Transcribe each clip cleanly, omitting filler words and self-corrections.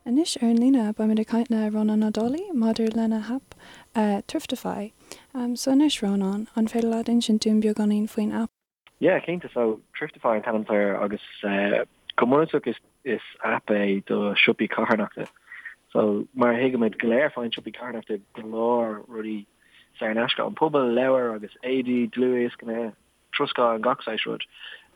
Anois ar an líne beimid ag caint le Rónán Ó Dálaigh maidir lena haip Thriftify. So anois Rónán, an féidir leat insint dúinn beagáinín faoin aip? Yeah, cinnte. So Thriftify an t-ainm atá air agus go bunúsach is is aip é do siopaí carthanachta. So mar a thuigimid go léir faigheann siopaí carthanachta go leor rudaí saor in aisce ón pobal, leabhair agus éadaí, dlúthdhioscanna, troscán, gach saghas rud.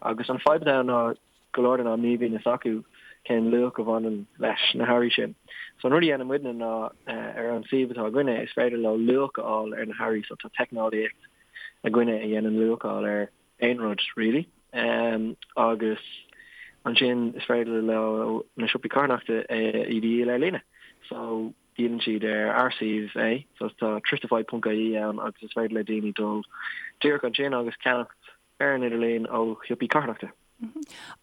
Agus an fadhb atá ann ná go leor den am ní bhíonn fhios acu cén luach a bhaineann leis na hearraí sin. So an rud a dhéanann muidne ná ar an suíomh atá againne is féidir leo luach a fháil ar na hearraí so tá teicneolaíocht againne a dhéanann luacháil ar aon rud really agus ansin is féidir leo na siopaí carthanachta iad a dhíol ar líne. So díolann siad ar ár suíomh é, so tá thriftify.ie ann agus is féidir le daoine dul díreach ansin agus ceannacht ar an idirlíon ó shiopaí carthanachta.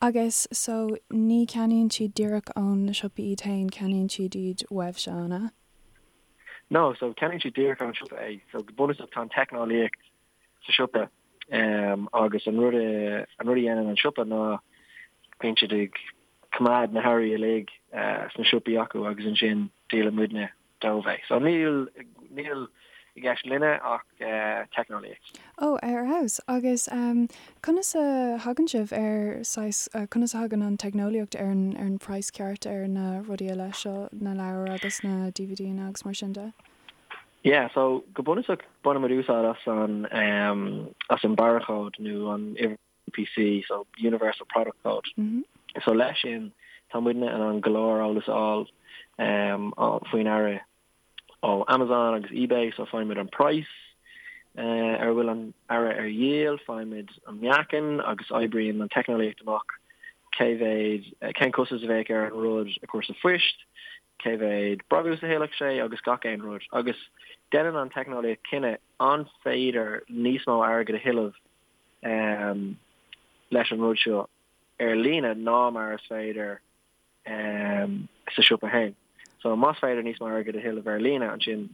Agus so ní ceannaíonn siad díreach ón na siopaí iad féin, ceannaíonn siad iad uaibhse, an ea? No, so ceannaíonn siad díreach ón siopa é. So go bunúsach tá an teicneolaíocht sa siopa agus an rud an rud a dhéanann an siopa ná bíonn siad ag coimeád na hearraí uilig sna siopaí acu agus ansin díolann muidne dóibh é. So níl níl i gceist linne ach teicneolaíocht. Ó, ar fheabhas. Agus conas a thagann sibh ar saghas, conas a thagann an teicneolaíocht ar an ar an praghas ceart ar na rudaí eile seo, na leabhair agus na DVDanna agus mar sin de? Yeah, so go bunúsach bainimid úsáid as an as an barrachód nó an uimhir UPC, so Universal Product Code. So leis sin tá muidne in ann go leor eolas a fháil faoin earra ó Amazon agus eBay, so faighimid an praghas ar a bhfuil an earra ar dhíol, faighimid an meáchan agus oibríonn an teicneolaíocht amach cé mhéad, cén costas a bheadh ar an rud a chur sa phoist, cé mhéad brabús a thuillfeadh sé agus gach aon rud. Agus déanann an teicneolaíocht cinneadh an féidir níos mó airgid a thuilleamh leis an rud seo ar líne ná mar is féidir sa siopa féin. So más féidir níos mó airgid a thuilleamh ar líne ansin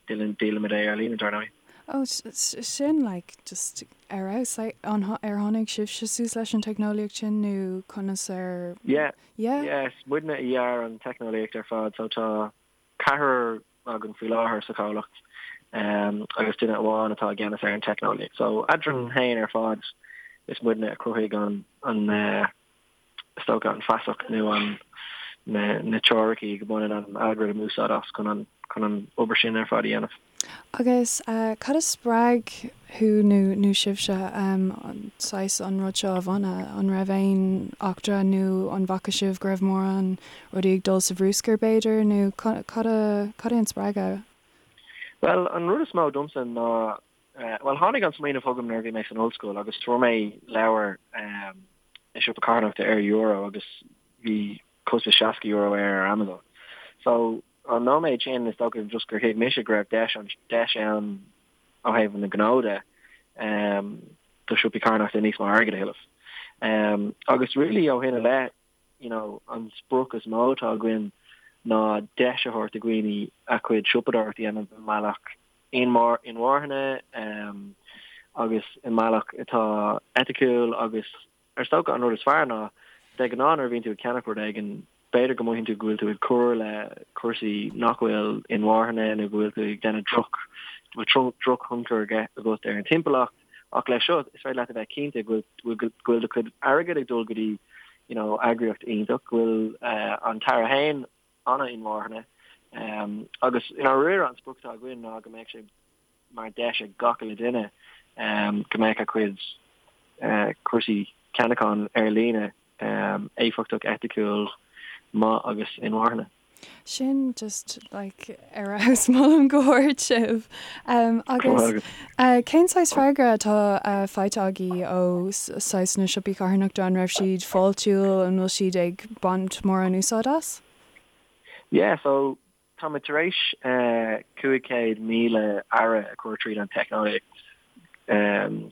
díolaimid é ar líne dar ndóigh. Oh sin like just ar fheabhas. Like an ar tháinig sibhse suas leis an teicneolaíocht sin nó conas ar. Yeah. Yeah. Yeah, is muidne a dhear an teicneolaíocht ar fad so tá ceathrar againn faoi láthair sa chomhlacht agus duine amháin atá i gceannas ar an teicneolaíocht. So eadrainn féin ar fad is muidne a chruthaigh an an is dócha an feasacht nó an na na teoiricí go mbaineann an algorithm úsáid as chun an chun an obair sin ar fad a dhéanamh. Agus cad a spreag thú nó nó sibhse saghas an rud seo a bhunadh? An raibh aon eachtra nó an bhfaca sibh go raibh mórán rudaí ag dul sa bhrúscar b'fhéidir nó cad a cad é an spreagadh? Bhuel, an rud is mó domsa ná, bhuel tháinig an smaoineamh chugam nuair a bhí mé san ollscoil agus fuair mé leabhar i siopa carthanachta ar euro agus bhí costas €60 air ar Amazon. So an nóiméad sin is dócha just gur thuig mise go raibh deis an deis ann ó thaobh na gnó de do siopaí carthanachta níos mó airgid a thuilleamh. Agus really ó shin i leith you know an sprioc is mó atá againn ná deis a thabhairt do dhaoine a gcuid siopadóireacht a dhéanamh i mbealach inmharthana agus i mbealach atá eiticiúil agus Is dócha an rud is fearr ná, de ghnáth nuair a bhíonn tú ag ceannach rud éigin, b'fhéidir go mothaíonn tú go bhfuil tú ag cur le cúrsaí nach bhfuil inmharthana nó go bhfuil tú ag déanamh droch, go bhfuil drochthionchar agat ar an timpeallacht. Ach leis seo, is féidir leat a bheith cinnte go bhfuil go bhfuil do chuid airgid ag dul go dtí you know eagraíocht iontach, go bhfuil an t-earra féin an-inmharthana. Agus i ndáiríre an sprioc atá againn ná go mbeadh sé mar deis ag gach uile duine go mbeadh a cuid cúrsaí ceannacháin ar líne éifeachtach, eiticiúil, maith agus inmharthana. Sin just like ar fheabhas molaim go hard sibh. Agus cén saghas freagra atá faighte agaibh ó saghas na siopaí carthanachta, an raibh siad fáiltiúil, an bhfuil siad ag baint mórán úsáid as? Yeah, so Táimid tar éis 500,000 earra a chur tríd an teicneolaíocht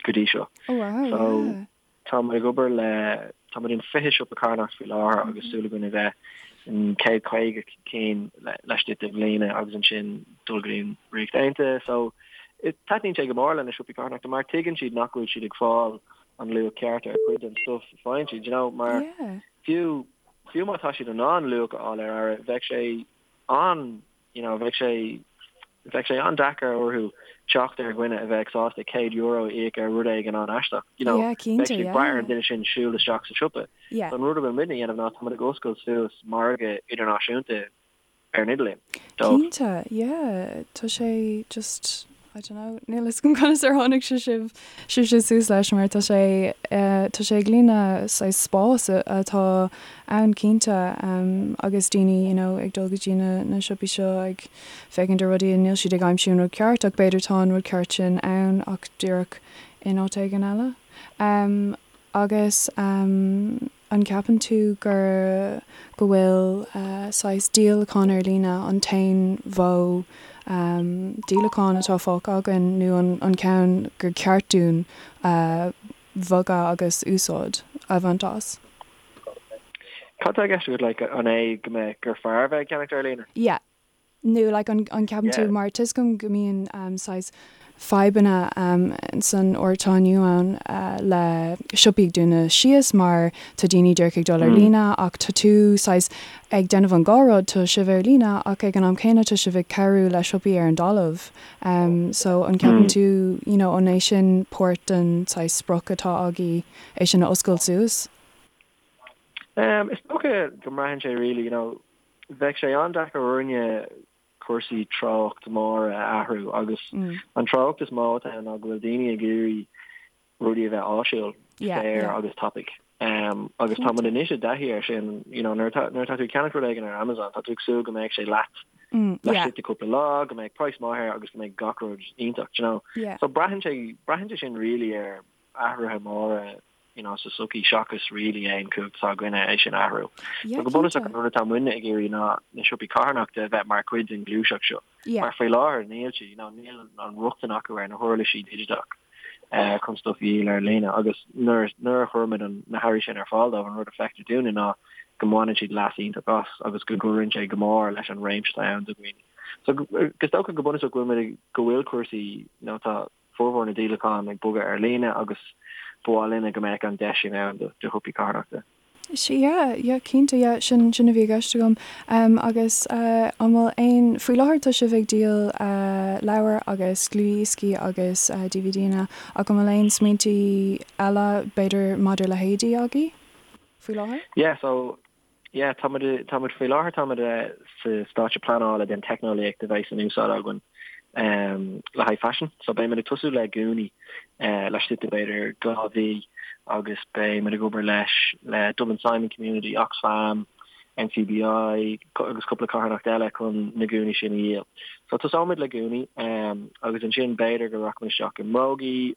go dtí seo. Oh wow, So yeah. táimid ag obair le, táimid in 20 siopa carthanachta faoi láthair agus súil againn a bheith in 150 cinn laistigh de bhliana agus ansin dul go dtí an Ríocht Aontaithe. So taitníonn sé go mór le na siopaí carthanachta mar tuigeann siad nach bhfuil siad ag fáil an luach ceart ar chuid den stuff a faigheann siad, you know, mar Yeah. fiú. fiú má tá siad in ann luach a fháil ar earra, bheadh sé an, you know, bheadh sé, bheadh sé an-deacair orthu teacht ar dhuine a bheadh sásta €100 a íoc ar rud éigin an-aisteach, you know, Yeah, cinnte, bheadh sé ag yeah. brath ar an duine sin siúl isteach sa siopa. Yeah. So an rud a bhfuil muidne a dhéanamh ná tá muid ag oscailt suas margadh idirnáisiúnta ar an idirlíon dóibh. Cinnte, yeah, tá sé just, I don't know, níl fhios agam conas ar tháinig sé sibh, sibhse suas leis mar tá sé, tá sé ag líonadh saghas spás atá ann cinnte agus daoine you know ag dul go dtí na na siopaí seo ag féachaint ar rudaí and níl siad ag aimsiú an rud ceart ach b'fhéidir tá an rud ceart sin ann ach díreach in áit éigin eile. Agus an gceapann tú gur, go bhfuil saghas díolachán ar líne an t-aon mhodh díolacháin atá fágtha againn nó an ceann gur ceart dúinn bhogadh agus úsáid a bhaint as? Cad tá i gceist agat, like, an é go mbeadh, gur fearr bheith ag ceannacht ar líne? Yeah. Nó like an an ceapann tú mar tá 'fhios agam go mbíonn saghas fadhbanna san uair atá inniu ann le siopaí ag dúnadh síos mar tá daoine díreach ag dul ar líne ach tá tú saghas ag déanamh an dhá rud, tá sibh ar líne ach ag an am céanna tá sibh ag cabhrú le siopaí ar an dtalamh so an ceapann tú you know an é sin páirt den saghas sprioc atá agaibh é sin a oscailt suas? Is dócha go mbraitheann sé really you know Bheadh sé an-deacair orainne cúrsaí treocht móra a athrú agus an treocht is mó atá ann ná go bhfuil daoine ag iarraidh rudaí a bheith áisiúil, saor agus tapaidh. Agus tá muid anois i dtaithí air sin, you know, nuair atá nuair atá tú ag ceannach rud éigin ar Amazon, tá tú ag súil go mbeidh sé leat laistigh de cúpla lá, go mbeidh praghas maith air agus go mbeidh gach rud iontach, do you know. So braitheann sé braitheann sé sin really ar athruithe móra you know, sa tsochaí seachas really aon chumhacht atá againne é sin a athrú. Yeah, So go bunúsach cinnte. an rud atá muidne ag iarraidh ná na siopaí carthanachta a bheith mar chuid den ghluaiseacht seo. Yeah. Mar faoi láthair níl siad, you know, níl an rochtain acu ar na huirlisí digiteach eh, chun stuff a dhíol ar líne agus nuair nuair a chuirimid an na hearraí sin ar fáil dóibh an rud a feictear dúinne ná go mbaineann siad leas iontach as agus go gcuireann sé go mór leis an réimse atá ann do dhaoine. So go is dócha go bunúsach go bhfuil muid ag go bhfuil cúrsaí you know, tá formhór na díolachán ag bogadh ar líne agus ba mhaith linne go mbeadh an deis sin ann do shiopaí carthanachta. Sea, yeah, yeah, cinnte, yeah, sin, sin a bhí i gceist agam. Um, agus uh, an bhfuil aon, faoi láthair tá sibh ag díol uh, leabhar agus dlúthdhioscaí agus uh, DVDanna ach an bhfuil aon smaointí eile b'fhéidir maidir le héadaí agaibh faoi láthair? Yeah, so Yeah, tá muid, tá muid faoi láthair, tá muid sa stáitse pleanála den teicneolaíocht a bheidh in úsáid againn le haghaidh faisin. So beidh muid ag tosú le gúnaí laistigh de b'fhéidir 2 mhí agus beidh muid ag obair leis le Dublin Simon Community, Oxfam, NCBI agus cúpla carthanacht eile chun na gúnaí sin a dhíol. So tosóimid le gúnaí agus ansin b'fhéidir go rachaimid isteach i mbrógaí,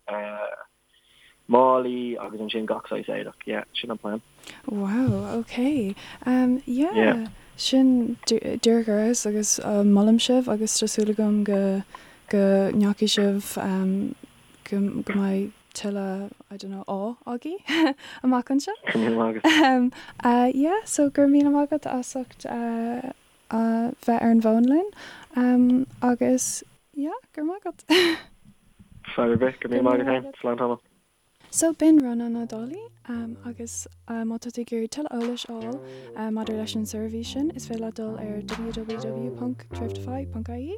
málaí agus ansin gach saghas éadach. Yeah, sin an plean. Wow, ok. Um, yeah, Yeah. sin díreach ar fheabhas agus uh, molaim sibh agus tá súil agam go go ndeachaigh sibh um, go, go mbeidh tuilleadh, I don't know, ádh agaibh amach anseo. Go raibh míle maith agat. Um, uh, yeah, so go raibh míle maith agat as ucht uh, a bheith ar an bhfón linn um, agus yeah, go raibh maith agat. Fadhb ar bith, go raibh míle maith agat féin. Slán tamall. So b'in Rónán Ó Dálaigh agus má tá tú ag iarraidh tuilleadh eolais a fháil maidir leis an seirbhís sin is féidir leat dul ar www.thriftify.ie.